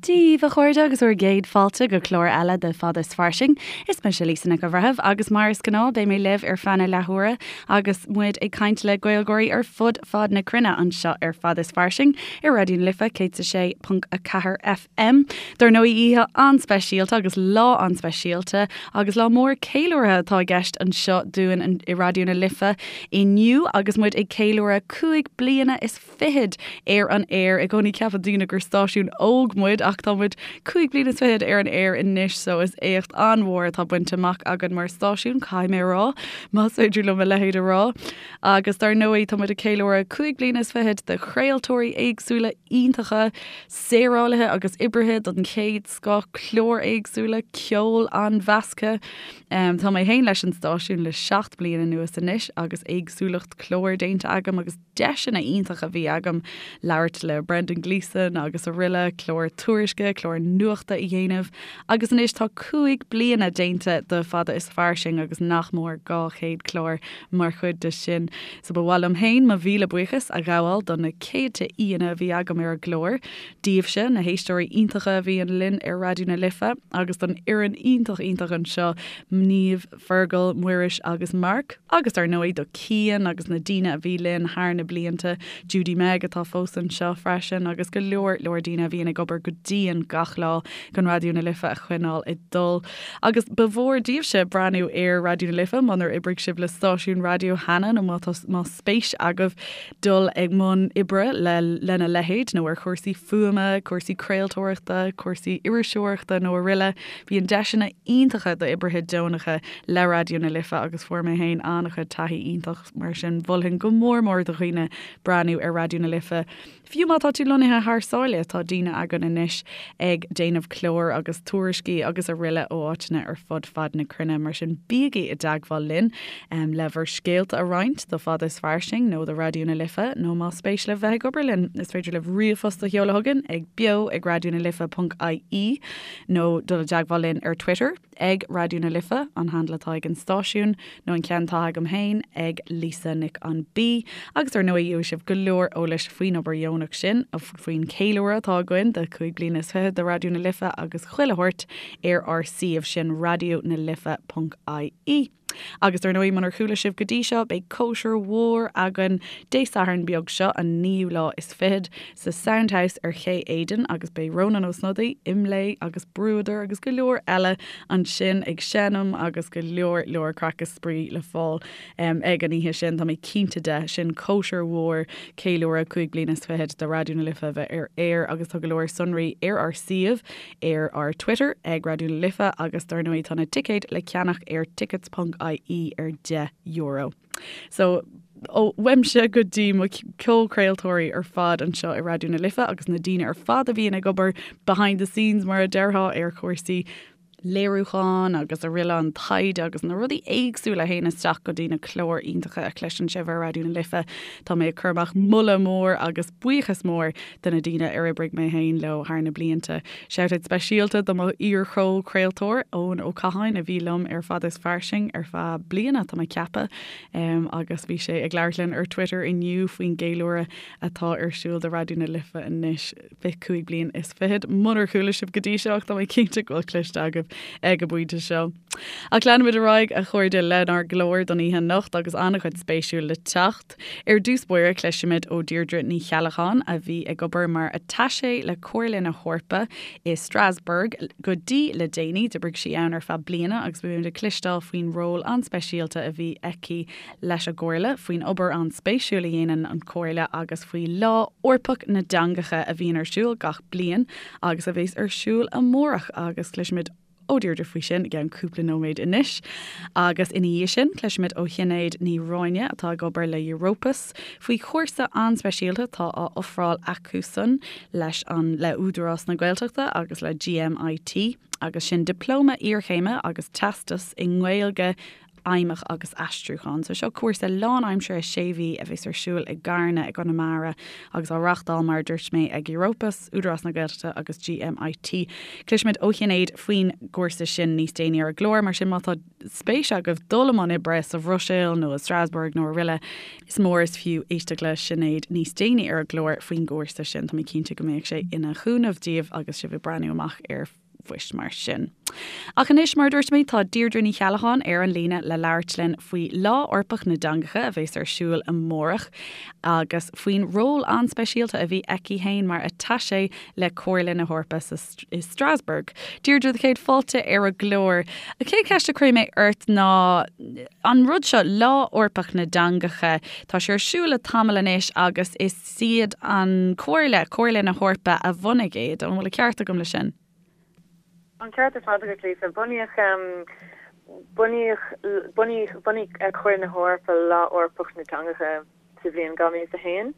Dia daoibh, a chairde, agus bhur gcéad fáilte go clár eile de Fada is Fairsing. Is mise Lisa Nic an Bhreithimh agus mar is gnáth beidh mé libh ar feadh na leathuaire agus muid ag caint le Gaeilgeoirí ar fud fad na cruinne anseo ar Fada is Fairsing ar Raidió na Life 106.4 FM. Dar ndóigh oíche an-speisialta agus lá an-speisialta agus lá mór ceiliúrtha atá i gceist anseo dúinn i Raidió na Life inniu agus muid ag ceiliúradh 5 bliana is fichead ar an aer. I gcónaí ceapann daoine gur stáisiún óg muid ach tá muid 5 bliana is fichead ar an aer anois so is éacht an-mhór atá bainte amach againn mar stáisiún, caithfidh mé a rá, más féidir liom a leithéid a rá. Agus dar ndóigh tá muid ag ceiliúradh 5 bliana is fichead de chraoltóirí éagsúla iontacha, saorálaithe agus oibrithe den chéad scoth, cláir éagsúla, ceol an-mheasctha. Tá mé féin leis an stáisiún le 7 bliana anuas anois agus éagsúlacht clár déanta agam agus deiseanna iontacha a bhí agam labhairt le Brendan Gleeson agus araile, clár tuairisce, clár nuachta a dhéanamh agus anois tá 5 bliana déanta de Fada is Fairsing agus nach mór 200 clár mar chuid de sin. So ba mhaith liom féin mo mhíle buíochas a ghabháil do na céadta aíonna a bhí agam ar an gclár, daoibhse, na héisteoirí iontacha a bhíonn linn ar Raidió na Life agus don fhoireann iontach iontach anseo, Niamh, Fergal, Muiris agus Mark, agus dar ndóigh do Cian agus na daoine a bhí linn thar na blianta, Judy Meg atá fós anseo freisin agus go leor leor daoine a bhíonn ag obair go dian gach lá chun Raidió na Life a choinneáil ag dul. Agus ba mhór daoibhse breathnú ar Raidió na Life munar oibrigh sibh le stáisiún raidió cheana nó má tá más spéis agaibh dul i mbun oibre le lena leithéid nó ar chúrsaí fuaime, cúrsaí craoltóireachta, cúrsaí iriseoireachta nó araile. Bíonn deiseanna iontacha d'oibrithe deonacha le Raidió na Life agus fuair mé féin an-chuid taithí iontach mar sin mholfainn go mór mór do dhaoine breathnú ar Raidió na Life. Fiú má tá tú lonnaithe thar sáile, tá daoine againn anois ag déanamh clár agus tuairiscí agus araile ó áiteanna ar fud fad na cruinne, mar sin bígí i dteagmháil linn le bhur scéalta a roinnt do Fada is Fairsing nó do Raidió na Life nó más spéis libh bheith ag obair linn, is féidir libh ríomhphost a sheoladh chugainn ag beo ag raidionalife.ie nó dul i dteagmháil linn ar Twitter. ag Raidió na Life, an handle atá ag an stáisiún, nó an ceann atá agam féin, ag Lisa Nic an B. Agus ar ndóigh gheobhaidh sibh go leor eolais faoin obair dheonach sin, faoin cheiliúradh atá againn de 5 bliana is fichead de Raidió na Life agus chuile shórt ar ár suíomh sin raidionalife.ie. Agus dar ndóigh, munar chuala sibh go dtí seo, beidh cóisir mhór againn Dé Sathairn beag seo, an naoú lá is fichead, sa Soundhouse ar Ché Éadain agus beidh Rónán Ó Snodaigh, Imlé agus Bruadar agus go leor eile ansin ag seinm agus go leor leor craic is spraoi le fáil ag an oíche sin, tá mé cinnte de. Sin cóisir mhór ceiliúradh 5 bliana is fichead de Raidió na Life a bheith ar aer agus tá go leor sonraí ar ár suíomh ar ár Twitter ag Raidió na Life agus dar ndóigh tá na ticéid le ceannach ar tickets.ie ar €10. So ó uaimse go dtí mo chomhchraoltóirí ar fad anseo i Raidió na Life agus na daoine ar fad a bhíonn ag obair behind the scenes mar a déarfá ar chúrsaí léiriúcháin agus araile an taighde agus na rudaí éagsúla a théann isteach go dtí na cláir iontacha a chloiseann sibh ar Raidió na Life. Tá mé ag cur amach moladh mór agus buíochas mór do na daoine ar oibrigh mé féin leo thar na blianta. Shoutout speisialta do mo iar-chomhchraoltóir, Eoin Ó Catháin, a bhí liom ar Fada is Fairsing ar feadh bliana, tá mé ag ceapadh, agus bhí sé ag labhairt linn ar Twitter inniu faoin gceiliúradh atá ar siúl do Raidió na Life anois, 25 bliain. Munar chuala sibh go dtí seo ach tá mé cinnte go bhfuil cloiste agaibh ag an bpointe seo. Ach leanfaimid ar aghaidh, a chairde, lenár gclár don oíche anocht agus an-chuid spéisiúil le teacht. Ar dtús báire, cloisfimid ó Deirdre Ní Cheallacháin, a bhí ag obair mar attaché le Comhairle na hEorpa i Strasbourg go dtí le déanaí. D'oibrigh sí ann ar feadh bliana agus beimid ag cloisteáil faoin ról an-speisialta a bhí aici leis an gComhairle, faoin obair an-spéisiúil a dhéanann an Chomhairle agus faoi Lá Eorpach na dTeangacha a bhíonn ar siúl gach bliain agus a bheas ar siúl amárach agus cloisfimid ó Deirdre faoi sin i gceann cúpla nóiméad anois. Agus ina dhiaidh sin, cloisfimid ó Shinéad Ní Ráinne, atá ag obair le Europus, faoi chúrsa an-speisialta atá á ofráil acusan leis an le Údarás na Gaeltachta agus le GMIT, agus sin Dioplóma Iarchéime agus Teastas i nGaeilge. Fheidhmeach agus Aistriúchán. So seo cúrsa lánaimseartha sé mhí a bheas ar siúl i gCarna i gConamara agus á reáchtáil mar a dúirt mé ag Europus, Údarás na Gaeltachta agus GMIT. Cloisfimid ó Shinéad faoin gcúrsa sin níos déanaí ar an gclár, mar sin má tá spéis agaibh dul i mbun oibre sa Bhruiséil nó i Strasbourg nó araile, is mór is fiú éisteacht le Sinéad níos déanaí ar an gclár faoin gcúrsa sin. Tá mé cinnte go mbeadh sé ina chúnamh daoibh agus sibh ag breathnú amach ar phoist mar sin. Ach anois, mar a dúirt mé, tá Deirdre Ní Cheallacháin ar an líne le labhairt linn faoi Lá Eorpach na dTeangacha a bheas ar siúl amárach agus faoin ról an-speisialta a bhí aici féin mar attaché le Comhairle na hEorpa sa i Strasbourg. Deirdre, do chéad fáilte ar an gclár. An chéad cheist a chuirfidh mé ort ná an rud seo, Lá Eorpach na dTeangacha, tá sé ar siúl le tamall anois agus is iad an Comhairle, Comhairle na hEorpa a bhunaigh é. An bhfuil an ceart agam le sin? An ceart ar fad agat, Lisa. Bunaíodh, bunaíodh, bunaíodh, bhunaigh Comhairle na hEorpa Lá Eorpach na dTeangacha sa bhliain 2001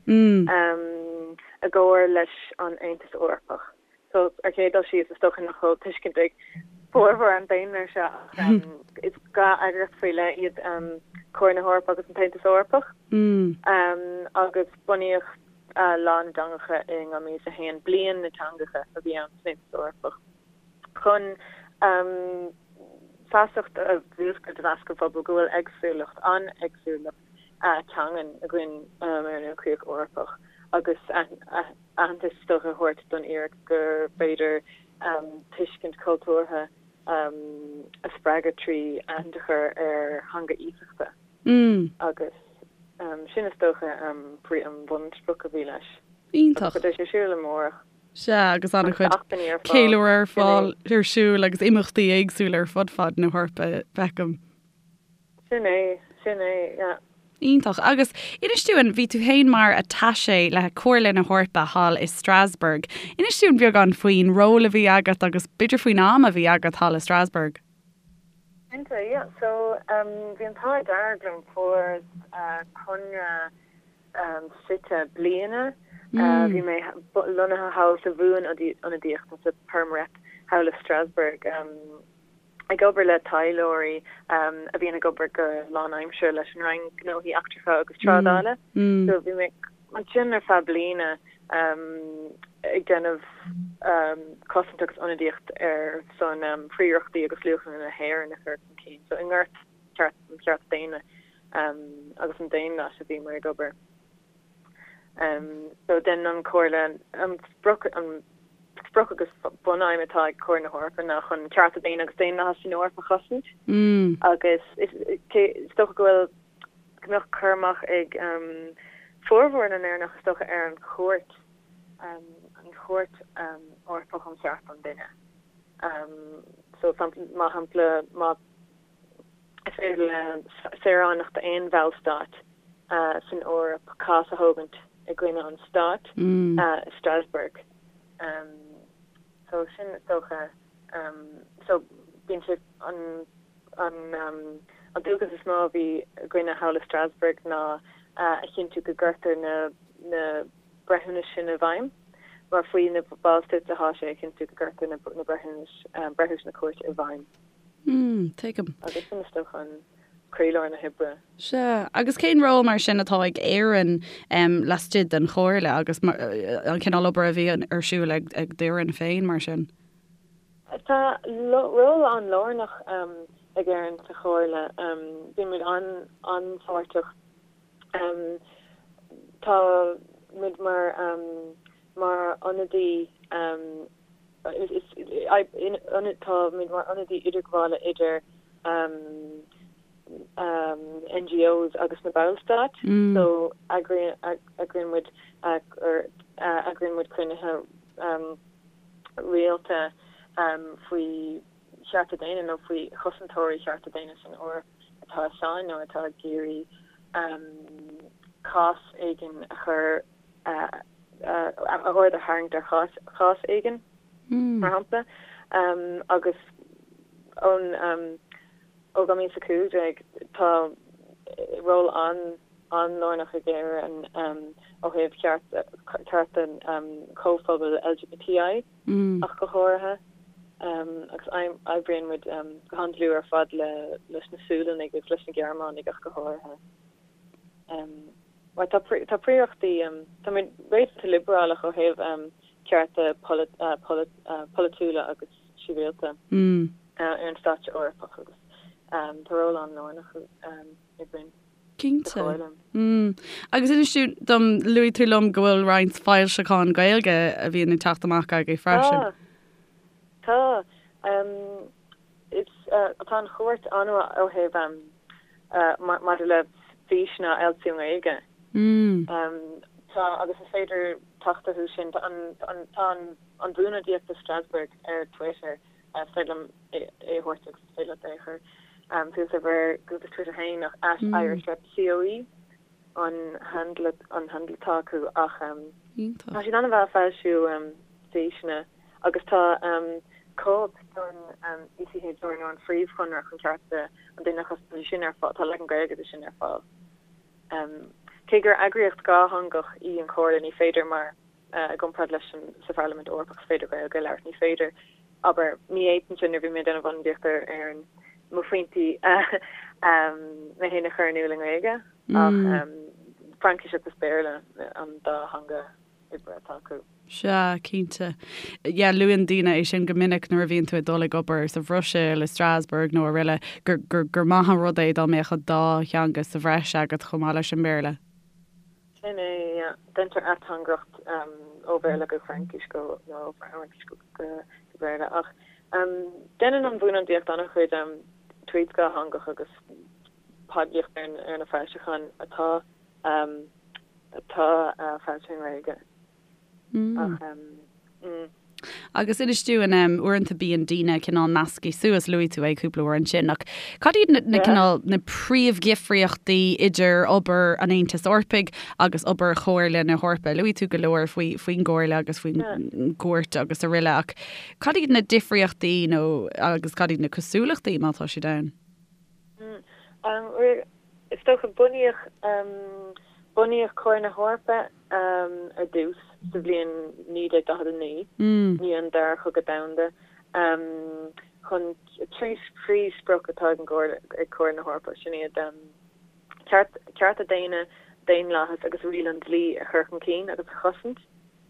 i gcomhar leis an Aontas Eorpach. So, ar chéad dul síos, is dócha nach bhfuil tuiscint ag formhór an daonra air seo ach is dá eagraíocht faoi leith iad Comhairle na hEorpa agus an tAontas Eorpach. Agus bunaíodh Lá na dTeangacha in 2001, Bliain na dTeangacha a bhí ann san Aontas Eorpach, chun feasacht a mhúscailt i measc an phobail go bhfuil éagsúlacht, an-éagsúlacht teangan againn ar an ilchríoch Eorpach agus aitheantas is dócha a thabhairt don fhíric gur féidir tuiscint chultúrtha a spreagadh trí aithint a chur ar theanga iasachta agus sin is dócha an bhunsprioc a bhí leis. Iontach. Agus beidh sé ar siúl amárach. Sea, agus an-chuid ceiliúradh ar fáil ar siúl agus imeachtaí éagsúla ar fud fad na hEorpa, feicim. Sin é, sin é, yeah. Iontach. Agus inis dúinn, bhí tú féin mar attaché le Comhairle na hEorpa thall i Strasbourg. Inis dúinn beagán faoin ról a bhí agat agus b'fhéidir faoin am a bhí agat thall i Strasbourg. Cinnte, yeah. So, bhí an t-ádh dearg liom, fuaireas conradh suite bliana. Bhí mé lonnaithe thall sa bhuanionadaíocht, nó sa Perm Rep thall i Strasbourg. ag obair le taidhleoirí a bhíonn ag obair go lánaimseartha leis an Roinn Gnóthaí Eachtracha agus Trádála. So bhí mé ansin ar feadh bliana ag déanamh cosaint agus ionadaíocht ar son príorachtaí agus luachanna na hÉireann a chur chun cinn. So i ngort an chearta daonna agus an daonlathais a bhíomar ag obair. So déanann an Chomhairle an sprioc an sprioc agus bunaidhm atá ag Comhairle na hEorpa ná chun cearta daonna agus daonlathas san Eoraip a chosaint agus is is dócha go bhfuil go mbeadh cur amach ag formhór na nÉireannach is dócha ar an chúirt an Chúirt Eorpach um Chearta an Duine. So mar shampla má Is féidir le saoránach d'aon bhallstát san Eoraip cás a thógaint i gcoinne an stáit i Strasbourg. So sin is dócha so bíonn sé an an an dualgas is mó a bhí againne thall i Strasbourg ná a chinntiú go gcuirtear na na breithiúnais sin i bhfeidhm mar faoi na ballstáit atá sé a chinntiú go gcuirtear na na breithiúnais breithiúnais na cúirte i bhfeidhm. Mm, tuigim. Agus sin is dócha an croílár na hoibre. Sea, agus cén ról mar sin atá ag Éirinn laistigh den Chomhairle agus an cineál obair a bhí ar siúl ag d'fhoireann féin mar sin? Tá ról an-lárnach ag Éirinn sa Chomhairle. Bíonn muid an-pháirteach. Tá muid mar mar ionadaí Tá muid mar ionadaí idirghabhála idir NGOs agus na Ballstáit so eagraíonn muid eagraíonn muid cruinnithe rialta faoi chearta daonna nó faoi chosantóirí chearta daonna san Eoraip atá i sáinn nó atá ag iarraidh cás éigin a chur aird a tharraingt ar chás éigin, mar shampla, agus ón ó 2015 tá ról an-lárnach ag Éirinn ó thaobh cearta comhphobal LGBTI ach go háirithe. Agus oibríonn muid go han-dlúth ar fad leis na Sualannaigh agus leis na Gearmánaigh ach go háirithe. Mar tá príorachtaí, tá muid réasúnta liobrálach ó thaobh cearta polaitiúla agus sibhialta ar an stáitse Eorpach agus tá ról an-lárnach againn. Cinnte. Agus inis tú dom, luaigh tú liom go bhfuil roinnt foilseachán Gaeilge a bhíonn ag teacht amach agaibh freisin. Tá. Tá. Is tá an chúirt an-mhaith ó thaobh maidir le físeanna a fhoilsiú i nGaeilge. Tá agus is féidir teacht orthu sin. Tá an tá an Bhuanionadaíocht i Strasbourg ar Twitter. Is féidir liom é a thabhairt agus is féidir leat é a chur suas ar bhur gcuntas Twitter féin ach @IrishRepCOE an handle an handle atá acu ach tá siad an-mhaith ag foilsiú físeanna agus tá cóip den ECHR nó an Phríomhchonradh chun Cearta an Duine a Chosaint, tá sin ar fáil, tá leagan Gaeilge de sin ar fáil. Cé gur eagraíocht dhátheangach í an Chomhairle ní féidir mar i gcomparáid leis an sa Pharlaimint Eorpach is féidir Gaeilge a labhairt, ní féidir, abair, ní fhéadfainnse nuair a bhí mé ag déanamh ionadaíocht ar Éirinn mo phointí mé féin a chur in iúl i nGaeilge ach Fraincis agus Béarla an dá theanga oibre atá acu. Sea, cinnte. Yeah, luann daoine é sin go minic nuair a bhíonn tú ag dul ag obair sa Bhruiséil, i Strasbourg nó araile, gur, gur, gur maith an rud é dá mbeadh an dá theanga sa bhreis agat chomh maith leis an mBéarla. Sin é, yeah. Deintear ateangaireacht ó Bhéarla go Fraincis go, nó ó Fhraincis go Béarla ach deineann an Bhuanionadaíocht an-chuid tweets dhátheangach agus poiblíocht ar na foilseacháin atá atá foilsithe i nGaeilge. Ach mm. Agus inis dúinn, uaireanta bíonn daoine cineál measctha suas, luaigh tú é cúpla uair ansin, ach cad iad na, na cineál, na príomhdhifríochtaí idir obair an Aontais Eorpaigh agus obair Chomhairle na hEorpa? Luaigh tú go leor faoi, faoin gComhairle agus faoin gCúirt agus araile, ach cad iad na difríochtaí nó agus cad iad na cosúlachtaí má tá siad ann? Is dócha, bunaíodh, bunaíodh Comhairle na hEorpa ar dtús sa bhliain 1949, i ndiaidh an Dara Cogadh Domhanda, chun trí phríomhsprioc atá ag an gComhairle, ag Comhairle na hEorpa, sin iad, ceart, cearta daonna, daonlathas agus riail an dlí a chur chun cinn agus a chosaint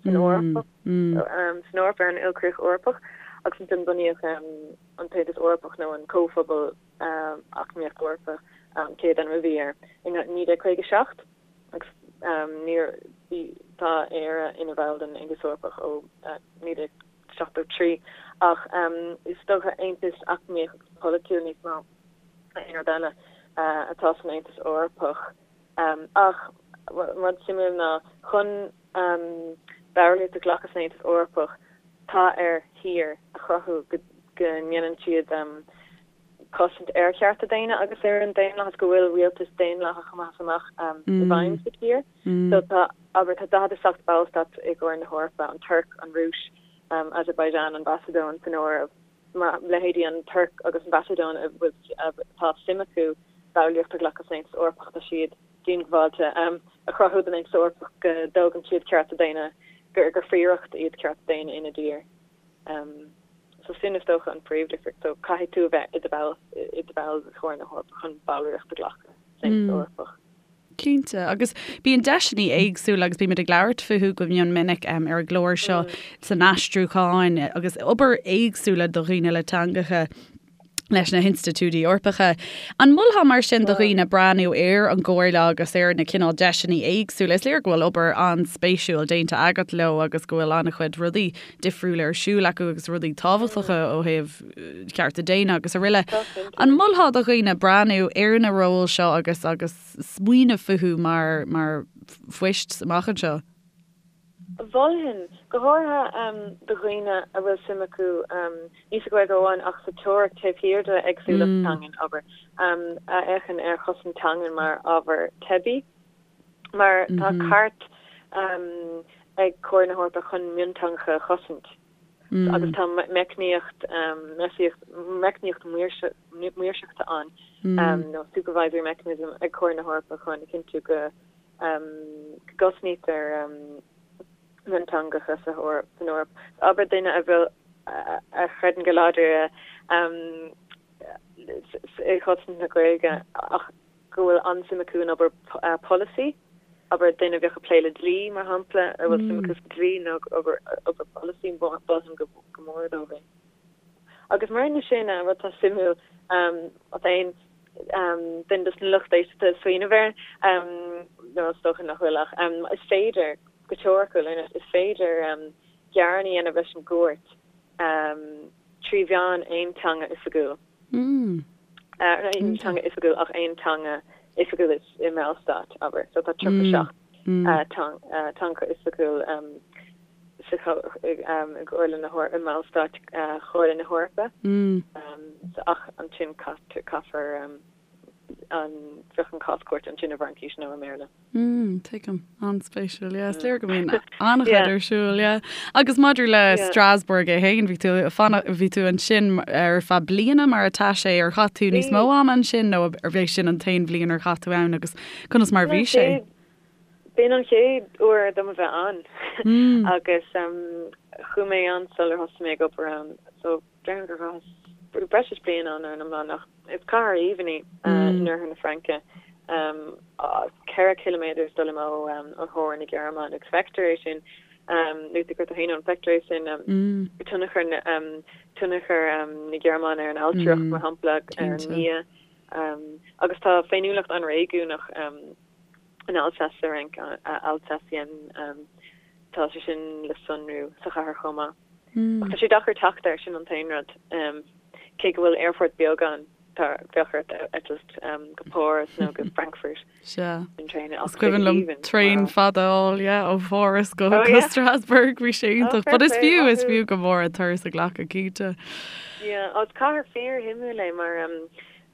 san Eoraip, san Eoraip, ar an ilchríoch Eorpach, agus ansin bunaíodh an tAontas Eorpach nó an Comhphobal Eacnamaíoch Eorpach, an chéad ainm a bhí air, i 1957 agus níor, bhí, tá Éire ina bhall den Aontas Eorpach ó 1973 ach is dócha aontas eacnamaíoch agus polaitiúil níos mó ná aon rud eile atá san Aontas Eorpach. Ach rud suimiúil ná chun ballraíocht a ghlacadh san Aontas Eorpach tá ar thír a chruthú go ndéanann siad cosaint ar chearta daonna agus ar an daonlathas, go bhfuil rialtas daonlathach amach is amach i bhfeidhm sa tír. So tá, abair, tá 47 ballstát i gComhairle na hEorpa, an Tuirc, an Rúis, Azerbaijan, an Mhacadóin san áireamh. Mar leithéidí an Tuirc agus an Mhacadóin a bhfuil, atá suim acu ballraíocht a ghlacadh san Aontas Eorpach, tá siad diongbháilte a chruthú don Aontas Eorpach go dtógann siad cearta daonna, gur phríoracht iad cearta daonna ina dtír. So sin is dócha an phríomhdhifríocht. So caithfidh tú a bheith i do bhall i do bhall de Chomhairle na hEorpa chun ballraíocht a ghlacadh san Aontas Eorpach. Cinnte, agus bíonn deiseanna éagsúla agus bímid ag labhairt fúthu go mion minic ar an gclár seo san aistriúchán agus obair éagsúla do dhaoine le teangacha leis na hinstitiúidí Eorpacha. An molfá mar sin do dhaoine breathnú ar an gComhairle agus ar na cineál deiseanna éagsúla? Is léir go bhfuil obair an-spéisiúil déanta agat leo agus go bhfuil an-chuid rudaí difriúla ar siúl acu agus rudaí tábhachtacha ó thaobh cearta daonna agus araile. An molfá do dhaoine breathnú ar na róil seo agus agus smaoineamh fúthu mar mar phoist amach anseo? Mholfainn, go háirithe do dhaoine a bhfuil suim acu, ní sa Ghaeilge amháin ach sa teoiric taobh thiar de éagsúlacht teangan, abair, a fhéachann ar chosaint teangan mar ábhar teibí. Mar tá cairt ag Comhairle na hEorpa chun mionteangacha a chosaint agus tá meicníocht meicníocht maoirseachta ann, nó supervisory mechanism, ag Comhairle na hEorpa chun a chinntiú go gcosnaítear mionteangacha san Eoraip. Abair duine a bhfuil. a chreideann go láidir i gcosaint na Gaeilge ach go bhfuil an-suim acu in obair polasaí, abair duine a bheadh ag plé le dlí, mar shampla, a bhfuil suim acu sa dlí nó obair polasaí, mholfainn go mór dóibh é. Agus maraon leis sin, rud atá suimiúil, má tá aon duine dos na lucht éisteachta ag smaoineamh air, nó is dócha nach bhfuil ach is féidir, go teoiriciúil, is féidir gearán a dhéanamh leis an gcúirt trí mheán aon teanga oifigiúil. Aon teanga oifigiúil ach aon teanga oifigiúil i mBallstát, abair. So tá 37 teanga oifigiúil sa i gComhairle na i mBallstáit Chomhairle na hEorpa. Ach ansin caithfear an bheadh an cás cúirte ansin i bhFraincís nó i mBéarla. Mm, tuigim. An-spéisiúil, yeah. Is léir go mbíonn an-chuid ar siúl, yeah. Agus maidir le Strasbourg é féin, bhí tú fanacht, bhí tú ansin ar feadh bliana mar attaché, ar chaith tú níos mó ama ansin nó arbh é sin an t-aon bhliain ar chaith tú ann agus conas mar bhí sé? B'in an chéad uair dom a bheith ann agus chuaigh mé ann sular thosaigh mé ag obair ann so déarfainn gur chaitheas breis is bliain ann ar an iomlán ach is cathair aoibhinn í in oirthear na Fraince, 4 chiliméadar is dul amach ó theorainn na Gearmáine agus feictear é sin, luaigh tú tú féin ann, feictear é sin tionchar tionchar na Gearmáine ar an ailtireacht mar shampla, ar an mbia agus tá féiniúlacht an-réigiúnach in Alsace sa Fhrainc, Alsacien, tá sé sin le sonrú sa chathair chomh maith. Ach tá sé deacair teacht air, sin an t-aon rud. Cé go bhfuil aerfort beag ann, tá, bheadh ort eitilt go Páras nó go Frankfurt. Sea. An traein Is cuimhin liom traein fada a fháil, yeah, ó Pháras go go Strasbourg, bhí sé iontach. But is fiú, is fiú go mór an turas a ghlacadh, cinnte. Yeah, is cathair fíor-shuimiúil é mar,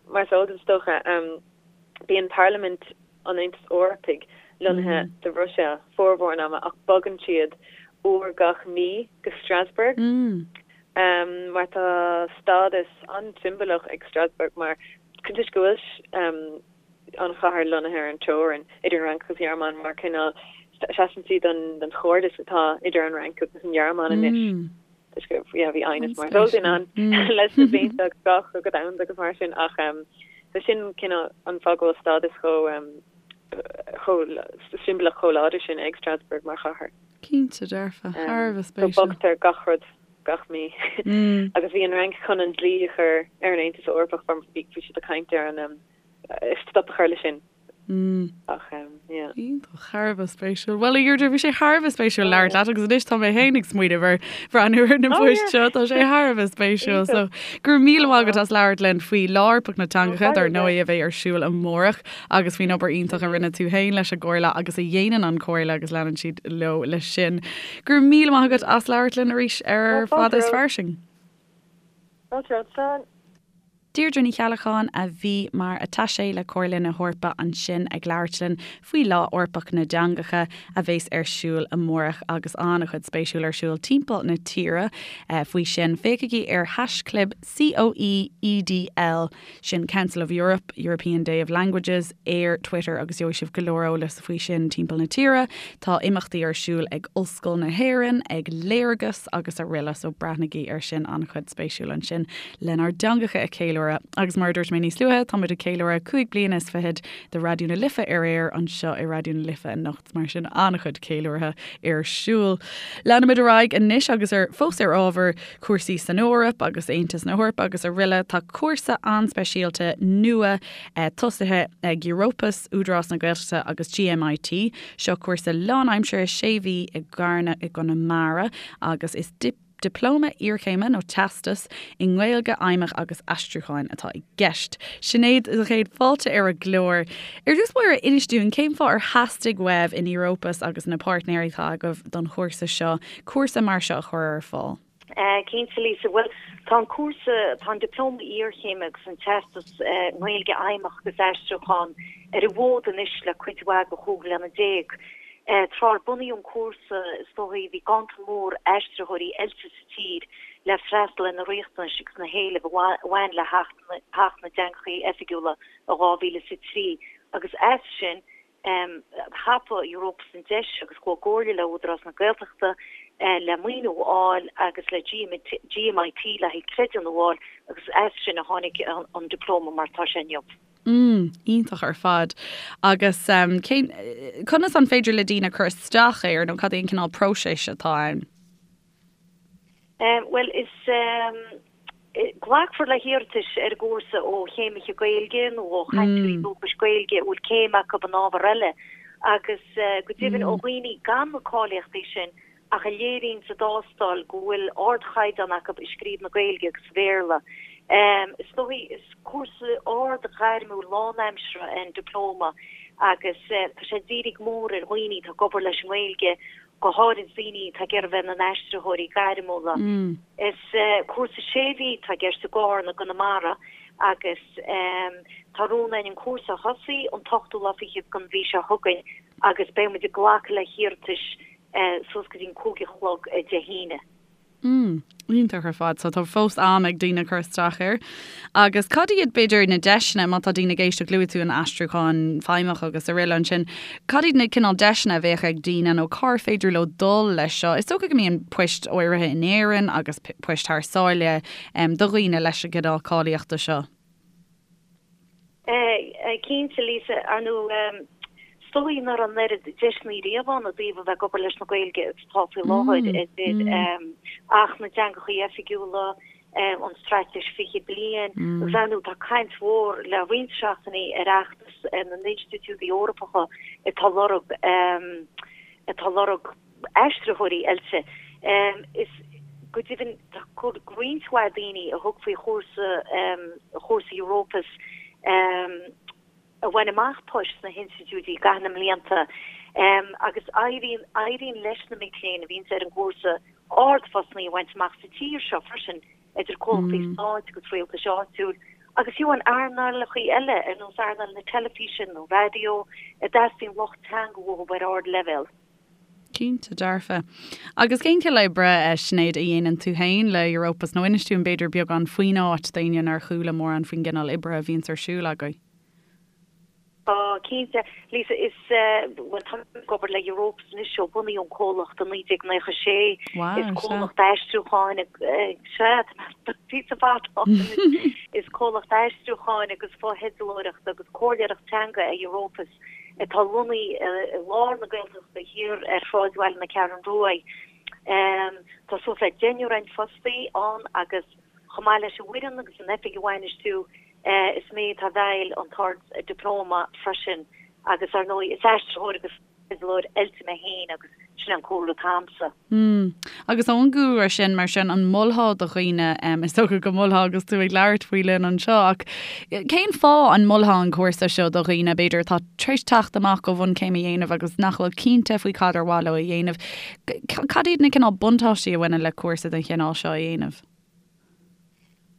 mar is eol duit is dócha, bíonn Parlaimint an Aontais Eorpaigh lonnaithe sa Bhruiséil formhór an ama ach bogann siad uair gach mí go Strasbourg mar tá stádas an-siombalach ag Strasbourg mar toisc go bhfuil an chathair lonnaithe ar an teorainn idir an Fhrainc agus an Ghearmáin mar cineál seasann sí don chairdeas atá idir an Fhrainc agus an Ghearmáin anois. Toisc go yeah bhí aighneas mar is eol duit ann leis na blianta agus dhá chogadh domhanda agus mar sin ach so sin cineál an fáth go bhfuil stádas chomh chomh siombalach chomh láidir sin ag Strasbourg mar chathair. Cinnte dearfa, thar a bheith spéisiúil. So bogtar gach rud gach mí agus bhí an Fhrainc chun an dlí a chur ar an Aontas Eorpach bhí siad ag caint ar an stop a chur leis sin. Ach yeah. Iontach, thar a bheith spéisiúil. Bhuel, a Dheirdre, bhí sé thar a bheith spéisiúil labhairt leat agus anois tá mé féin ag smaoineamh ar bhreathnú ar na poist seo, tá sé thar a bheith spéisiúil. So, go raibh míle maith agat as labhairt linn faoi Lá Eorpach na dTeangacha, dar ndóigh a bheidh ar siúl amárach agus faoin obair iontach a rinne tú féin leis an gComhairle agus a dhéanann an Chomhairle agus leanann siad leo leis sin. Go raibh míle maith agat as labhairt linn arís ar Fada is Fairsing. Fáilte romhat, Slán. Deirdre Ní Cheallacháin a bhí mar attaché le Comhairle na hEorpa ansin ag labhairt linn faoi Lá Eorpach na dTeangacha a bheas ar siúl amárach agus an-chuid spéisiúil ar siúl timpeall na tíre faoi sin. Féachaigí ar haischlib COEEDL, sin Council of Europe, European Day of Languages, ar Twitter agus gheobhaidh sibh go leor eolas faoi sin timpeall na tíre. Tá imeachtaí ar siúl ag Ollscoil na hÉireann, ag Léargas agus araile so breathnaigí ar sin, an-chuid spéisiúil ansin. lenár dteangacha a cheiliúradh. Agus mar a dúirt mé níos luaithe, táimid ag ceiliúradh 5 bliana is fichead de Raidió na Life ar aer anseo i Raidió na Life anocht, mar sin an-chuid ceiliúrtha ar siúl. Leanfaimid ar aghaidh anois agus ar fós ar ábhar cúrsaí san Eoraip agus Aontas na hEorpa agus araile, tá cúrsa an-speisialta nua tosaithe ag Europus, Údarás na Gaeltachta agus GMIT. Seo cúrsa lánaimseartha sé mhí i gCarna i gConamara agus is Dioplóma iarchéime nó teastas i nGaeilge Fheidhmeach agus Aistriúcháin atá i gceist. Sinéad, sa chéad fáilte ar an gclár. Ar dtús báire, inis dúinn cén fáth ar theastaigh uaibh in Europus agus na páirtnéirí atá agaibh don chúrsa seo, cúrsa mar seo a chur ar fáil? Cinnte, Lisa. Bhuel, tá an cúrsa, tá an Dioplóma Iarchéime agus an Teastas i nGaeilge Fheidhmeach agus Aistriúchán ar an bhfód anois le cuid mhaith de chúig bliana déag. Tráth ar bunaíodh an cúrsa, is dóigh, bhí ganntan mór aistritheoirí oilte sa tír le freastal ar na riachtanais agus na héilimh a bhain le hAcht na dTeangacha Oifigiúla i 2003 agus as sin, thapaigh Europus an deis agus chuaigh i gcomhairle le Údarás na Gaeltachta. le maoiniú a fháil agus le GMIT le haghaidh creidiúnú a fháil agus as sin a tháinig an Dioplóma mar atá sé inniu. Mm, iontach ar fad. Agus cén, conas an féidir le daoine cur isteach air nó cad é an cineál próiseas atá ann? Bhuel, is glacfar le hiarratais ar an gcúrsa ó chéimithe Gaeilge nó ó chainteoirí dúchais Gaeilge a bhfuil céim acu in ábhar eile agus go deimhin ó dhaoine gan na cáilíochtaí sin ach a léiríonn sa dtástáil go bhfuil ardchaighdeán acu i scríobh na Gaeilge agus Bhéarla. Is dóigh, is cúrsa ard-ghairmiúil lánaimseartha é an Dioplóma agus tá sé dírithe go mór ar dhaoine atá ag obair leis an nGaeilge, go háirid daoine atá ag iarraidh a bheith ina n-aistritheoirí gairmiúla. Is cúrsa sé mhí atá i gceist i gCarna i gConamara agus tá rún againn an cúrsa a thosaí an t-ochtú lá fichead den mhí seo chugainn agus beidh muid ag glacadh le hiarratais suas go dtí an cúig a chlog Dé hAoine. Mm, iontach ar fad. So tá fós am ag daoine cur isteach air. Agus cad iad b'fhéidir na deiseanna má tá daoine ag éisteacht luaigh tú an aistriúchán feidhmeach agus araile ansin, cad iad na cineál deiseanna a bheadh ag daoine nó cár féidir leo dul leis seo? Is dócha go mbíonn poist áirithe in Éirinn agus poist thar sáile do dhaoine leis an gcineál cáilíochta seo. Cinnte, Lisa, ar ndóigh, is dóigh nach raibh an oiread deiseanna riamh ann i dtaobh a bheith ag obair leis na Gaeilge agus atá faoi láthair, idir Acht na dTeangacha Oifigiúla, an Straitéis 20 Bliain, agus ar ndóigh tá caint mhór le roinnt seachtainí ar fheachtas na n-institiúidí Eorpacha atá lorg atá lorg aistritheoirí oilte. Is go deimhin tá roinnt mhaith daoine a thug faoi chúrsa chúrsa Europus a bhain amach poist sna hinstitiúidí i gcaitheamh na mblianta agus éiríonn éiríonn leis na mic léinn a bhíonns ar an gcúrsa ardphostanna a bhaint amach sa tír seo freisin, idir comhlachtaí stáit agus rialtais áitiúil agus fiú in earnálacha eile ar nós earnáil na teilifíse nó raidió a dteastaíonn lucht teanga uathu ar ardleibhéal. Cinnte, dearfa. Agus cén cineál oibre, a Sinéad, a dhéanann tú féin le Europus? Nó inis dúinn b'fhéidir beagán faoin áit d'éinne nár chuala mórán faoin gcineál oibre a bhíonns ar siúl agaibh. Tá, cinnte. Lisa, is, bhuel, táim ag obair le Europus anois ó bunaíodh an comhlacht i 1996. Wow, Is comhlacht aistriúcháin, sea, tá píosa fada ann anois. Is comhlacht aistriúcháin agus fotheidealóireachta agus comhairleoireacht teanga é Europus. atá lonnaithe i lár na Gaeltachta thiar ar shráidbhaile na Ceathrún Rua. Tá suas le deichniúr againn fostaí ann agus chomh maith leis an bhfoireann agus an oifig a bhainistiú, is mé atá i bhfeighil an tArd-Dioplóma freisin agus ar ndóigh is aistritheoir agus teidealóir oilte mé féin agus sin an cúlra atá a'msa. Mm. Agus ón gcúlra sin, mar sin, an molfá do dhaoine, is dócha go molfá agus tú ag labhairt faoi linn anseo, ach cén fáth an molfá an cúrsa seo do dhaoine, b'fhéidir, atá tar éis teacht amach ó bhunchéim a dhéanamh agus nach bhfuil cinnte faoi cad ar mhaith leo a dhéanamh? Cad iad na cineál buntáistí a bhaineann le cúrsa den chineál seo a dhéanamh?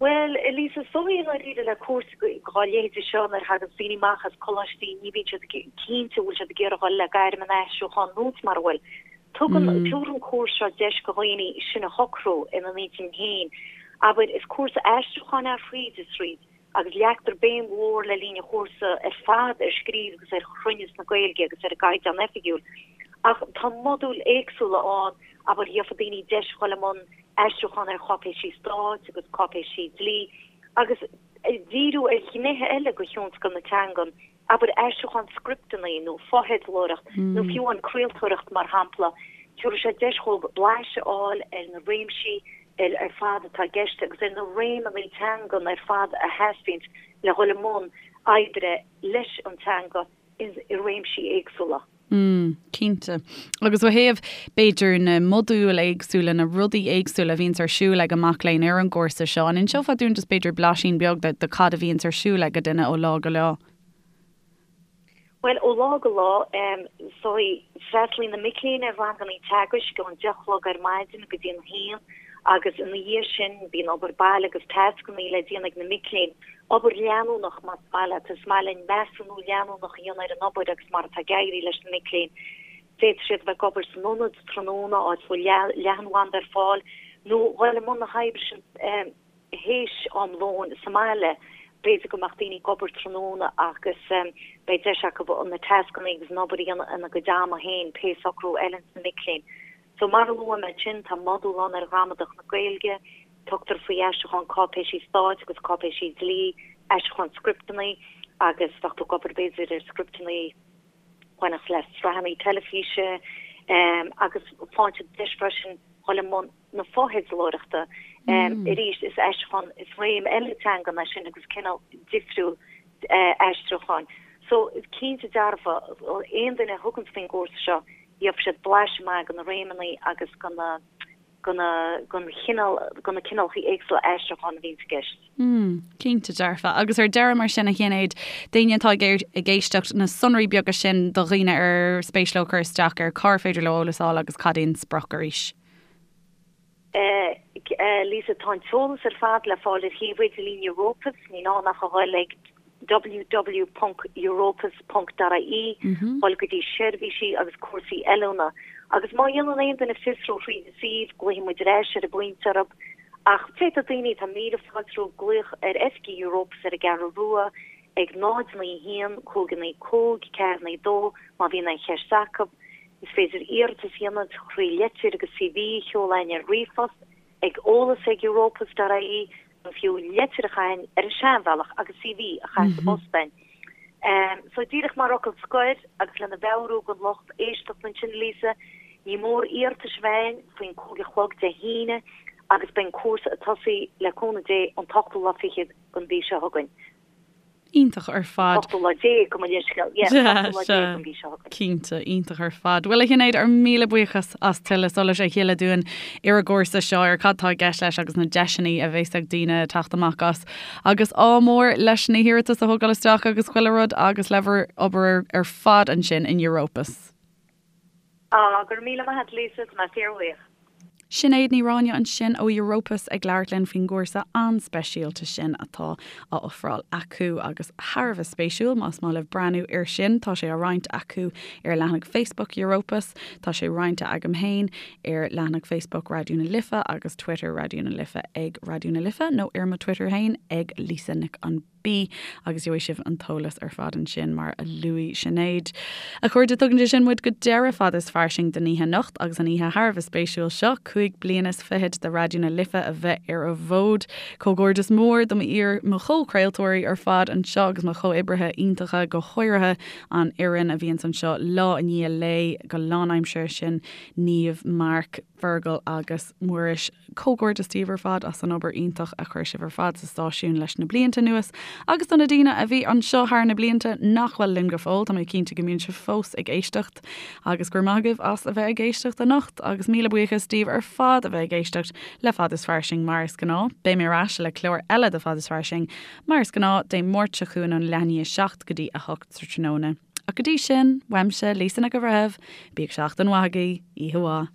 Bhuel, a Lisa, is dóigh i ndáiríre le cúrsa dá leithéide seo nuair a thagann daoine amach as coláistí ní bhíonn siad cinnte an bhfuil siad ag iarraidh dhul le gairm an aistriúcháin nó mar a bhfuil. Tugann, tabharann an cúrsa seo deis do dhaoine sin a shocrú ina n-intinn féin. Abair, is cúrsa aistriúcháin é thríd is thríd agus leagtar béim mhór le linn an chúrsa ar fad ar scríobh agus ar chruinneas na Gaeilge agus ar an gCaighdeán Oifigiúil. Ach tá modúil éagsúla ann, abair, gheofa daoine deis dhul i mbun aistriúchán ar cháipéisí stáit agus cáipéisí dlí agus díriú ar ghnéithe eile de thionscal na teangan, abair aistriúchán scripteanna nó fotheidealóireacht nó fiú an craoltóireacht mar shampla. Tabharfaidh sé deis dhóibh blaiseadh a fháil ar na réimsí ar fad atá i gceist agus ar na réimeanna teangan ar fad a theastaíonns le dhul i mbun oibre leis an teanga i réimsí éagsúla. Mm, cinnte. Agus ó thaobh, b'fhéidir, na modúil éagsúla, na rudaí éagsúla a bhíonns ar siúl ag an mac léinn ar an gcúrsa seo, an inseofá dúinn just b'fhéidir blaisín beag de, de cad a bhíonns ar siúl ag duine ó lá go lá? Bhuel, ó lá go lá, is dóigh, freastalaíonn na mic léinn ar ranganna teagaisc ón deich a chlog ar maidin go dtí an haon agus ina dhiaidh sin bíonn obair baile agus tascanna le déanamh ag na mic léinn. Obair leanúnach, más maith leat. Is maith linn measúnú leanúnach a dhéanamh ar an obair agus mar atá ag éirí leis na mic léinn. D'fhéadfadh siad a bheith ag obair san ionad tráthnóna, áit a bhfuil leathanbhanda ar fáil, nó dhul i mbun na hoibre sin théis am lóin sa mbaile. B'fhéidir go mbeadh daoine ag obair tráthnóna agus beidh deis acu na tascanna agus an obair a dhéanamh ina gcuid ama féin, pé socrú a fheileanns na mic léinn. So mar a luaigh mé ansin, tá modúl ann ar ghramadach na Gaeilge, tugtar faoi aistriúchán cáipéisí stáit agus cáipéisí dlí, aistriúchán scripteanna agus bheadh tú ag obair b'fhéidir ar scripteanna a bhainfeadh le sraitheanna teilifíse agus faigheann siad deis freisin dhul i mbun na fotheidealóireachta. Arís, is aistriúchán, is réim eile teangan é sin agus cineál difriúil aistriúcháin. So, cinnte dearfa, aon duine a thuganns faoin gcúrsa seo, gheobhaidh siad blaiseadh maith de na réimeanna agus de na, de na, den chineál, de na cineálacha éagsúla aistriúcháin a bhíonns i gceist. Mm, cinnte dearfa. Agus ar deireadh mar sin, a Shinéad, d'éinne atá ag éisteacht, na sonraí beaga sin do dhaoine ar spéis leo cur isteach air, cár féidir leo eolas a fháil agus cad é an sprioc arís? Lisa, Tá an t-eolas ar fad le fáil ar shuíomh idirlín Europus, ní gá ach a dhul ag www.europus.ie, dhul go dtí seirbhísí agus cúrsaí oiliúna. Agus má dhéanann aon duine fiosrú thríd an suíomh, glaofaidh muid ar ais ar an bpointe orthu. Ach féadfaidh daoine, tá 1000 fáilte rompu glaoch ar oifigí Europus ar an gCeathrú Rua ag 0 9 1 5 9 5 4 9 2 má bhíonn aon cheist acu. Is féidir iarratas a dhéanamh trí leitir agus CV a sheoladh chugainn ar ríomhphost ag eolas ag europus.ie nó fiú leitir a chaitheamh ar an seanbhealach agus CV a chaitheamh sa bpost chugainn. So díreach mar fhocal scoir agus lena mheabhrú don lucht éisteachta ansin, Lisa, ní mór iarratais a bheith againn faoin 5 a chlog Dé hAoine agus beidh an cúrsa ag tosaí le cúnamh Dé an t-ochtú lá fichead den mhí seo chugainn. Iontach ar fad. Ochtú lá déag, gabh mo leithscéal. Yeah, ochtú lá déag den mhí seo chugainn. Cinnte, iontach ar fad. Bhuel, a Shinéad, ár míle buíochas as tuilleadh solais a shileadh dúinn ar an gcúrsa seo, ar cad tá i gceist leis agus na deiseanna a bheas ag daoine teacht amach as. Agus ádh mór leis na hiarratais a thógáil isteach agus chuile rud agus le bhur obair ar fad ansin in Europus. Á, go raibh míle maith agat, Lisa, tá mé fíorbhuíoch. Sinéad Ní Ráinne ansin ó Europus ag labhairt linn faoin gcúrsa an-speisialta sin atá á ofráil acu agus thar a bheith spéisiúil más maith libh breathnú air sin. Tá sé á roinnt acu ar leathanach Facebook Europus, tá sé roinnte agam féin ar leathanach Facebook Raidió na Life agus Twitter Raidió na Life ag Raidió na Life nó ar mo Twitter féin ag Lisa Nic an B agus gheobhaidh sibh an t-eolas ar fad ansin mar a luaigh Sinéad. A chairde, tugann sé sin muid go deireadh Fada is Fairsing don oíche anocht agus an oíche thar a bheith spéisiúil seo, 25 bliana de Raidió na Life a bheith ar an bhfód. Comhghairdeas mór do mo chomhchraoltóirí ar fad anseo agus mo chomhoibrithe iontacha, go háirithe an fhoireann a bhíonns anseo lá i ndiaidh lae go lánaimseartha, sin Niamh, Mark, Fergal agus Muiris. Comhghairdeas daoibh ar fad as an obair iontach a chuir sibh ar fad sa stáisiún leis na blianta anuas agus do na daoine a bhí anseo thar na blianta nach bhfuil linn go fóill, tá mé cinnte go mbíonn sibh fós ag éisteacht agus go raibh maith agaibh as a bheith ag éisteacht anocht agus míle buíochas daoibh ar fad a bheith ag éisteacht le Fad is Fairsing mar is gnáth. Beidh mé ar ais le clár eile de Fad is Fairsing mar is gnáth Dé Máirt seo chugainn ón leath i ndiaidh 7 go dtí 8 sa tráthnóna. Ach go dtí sin, uaimse, Lisa Nic an Bhreithimh, bíodh seachtain mhaith agaibh, oíche mhaith.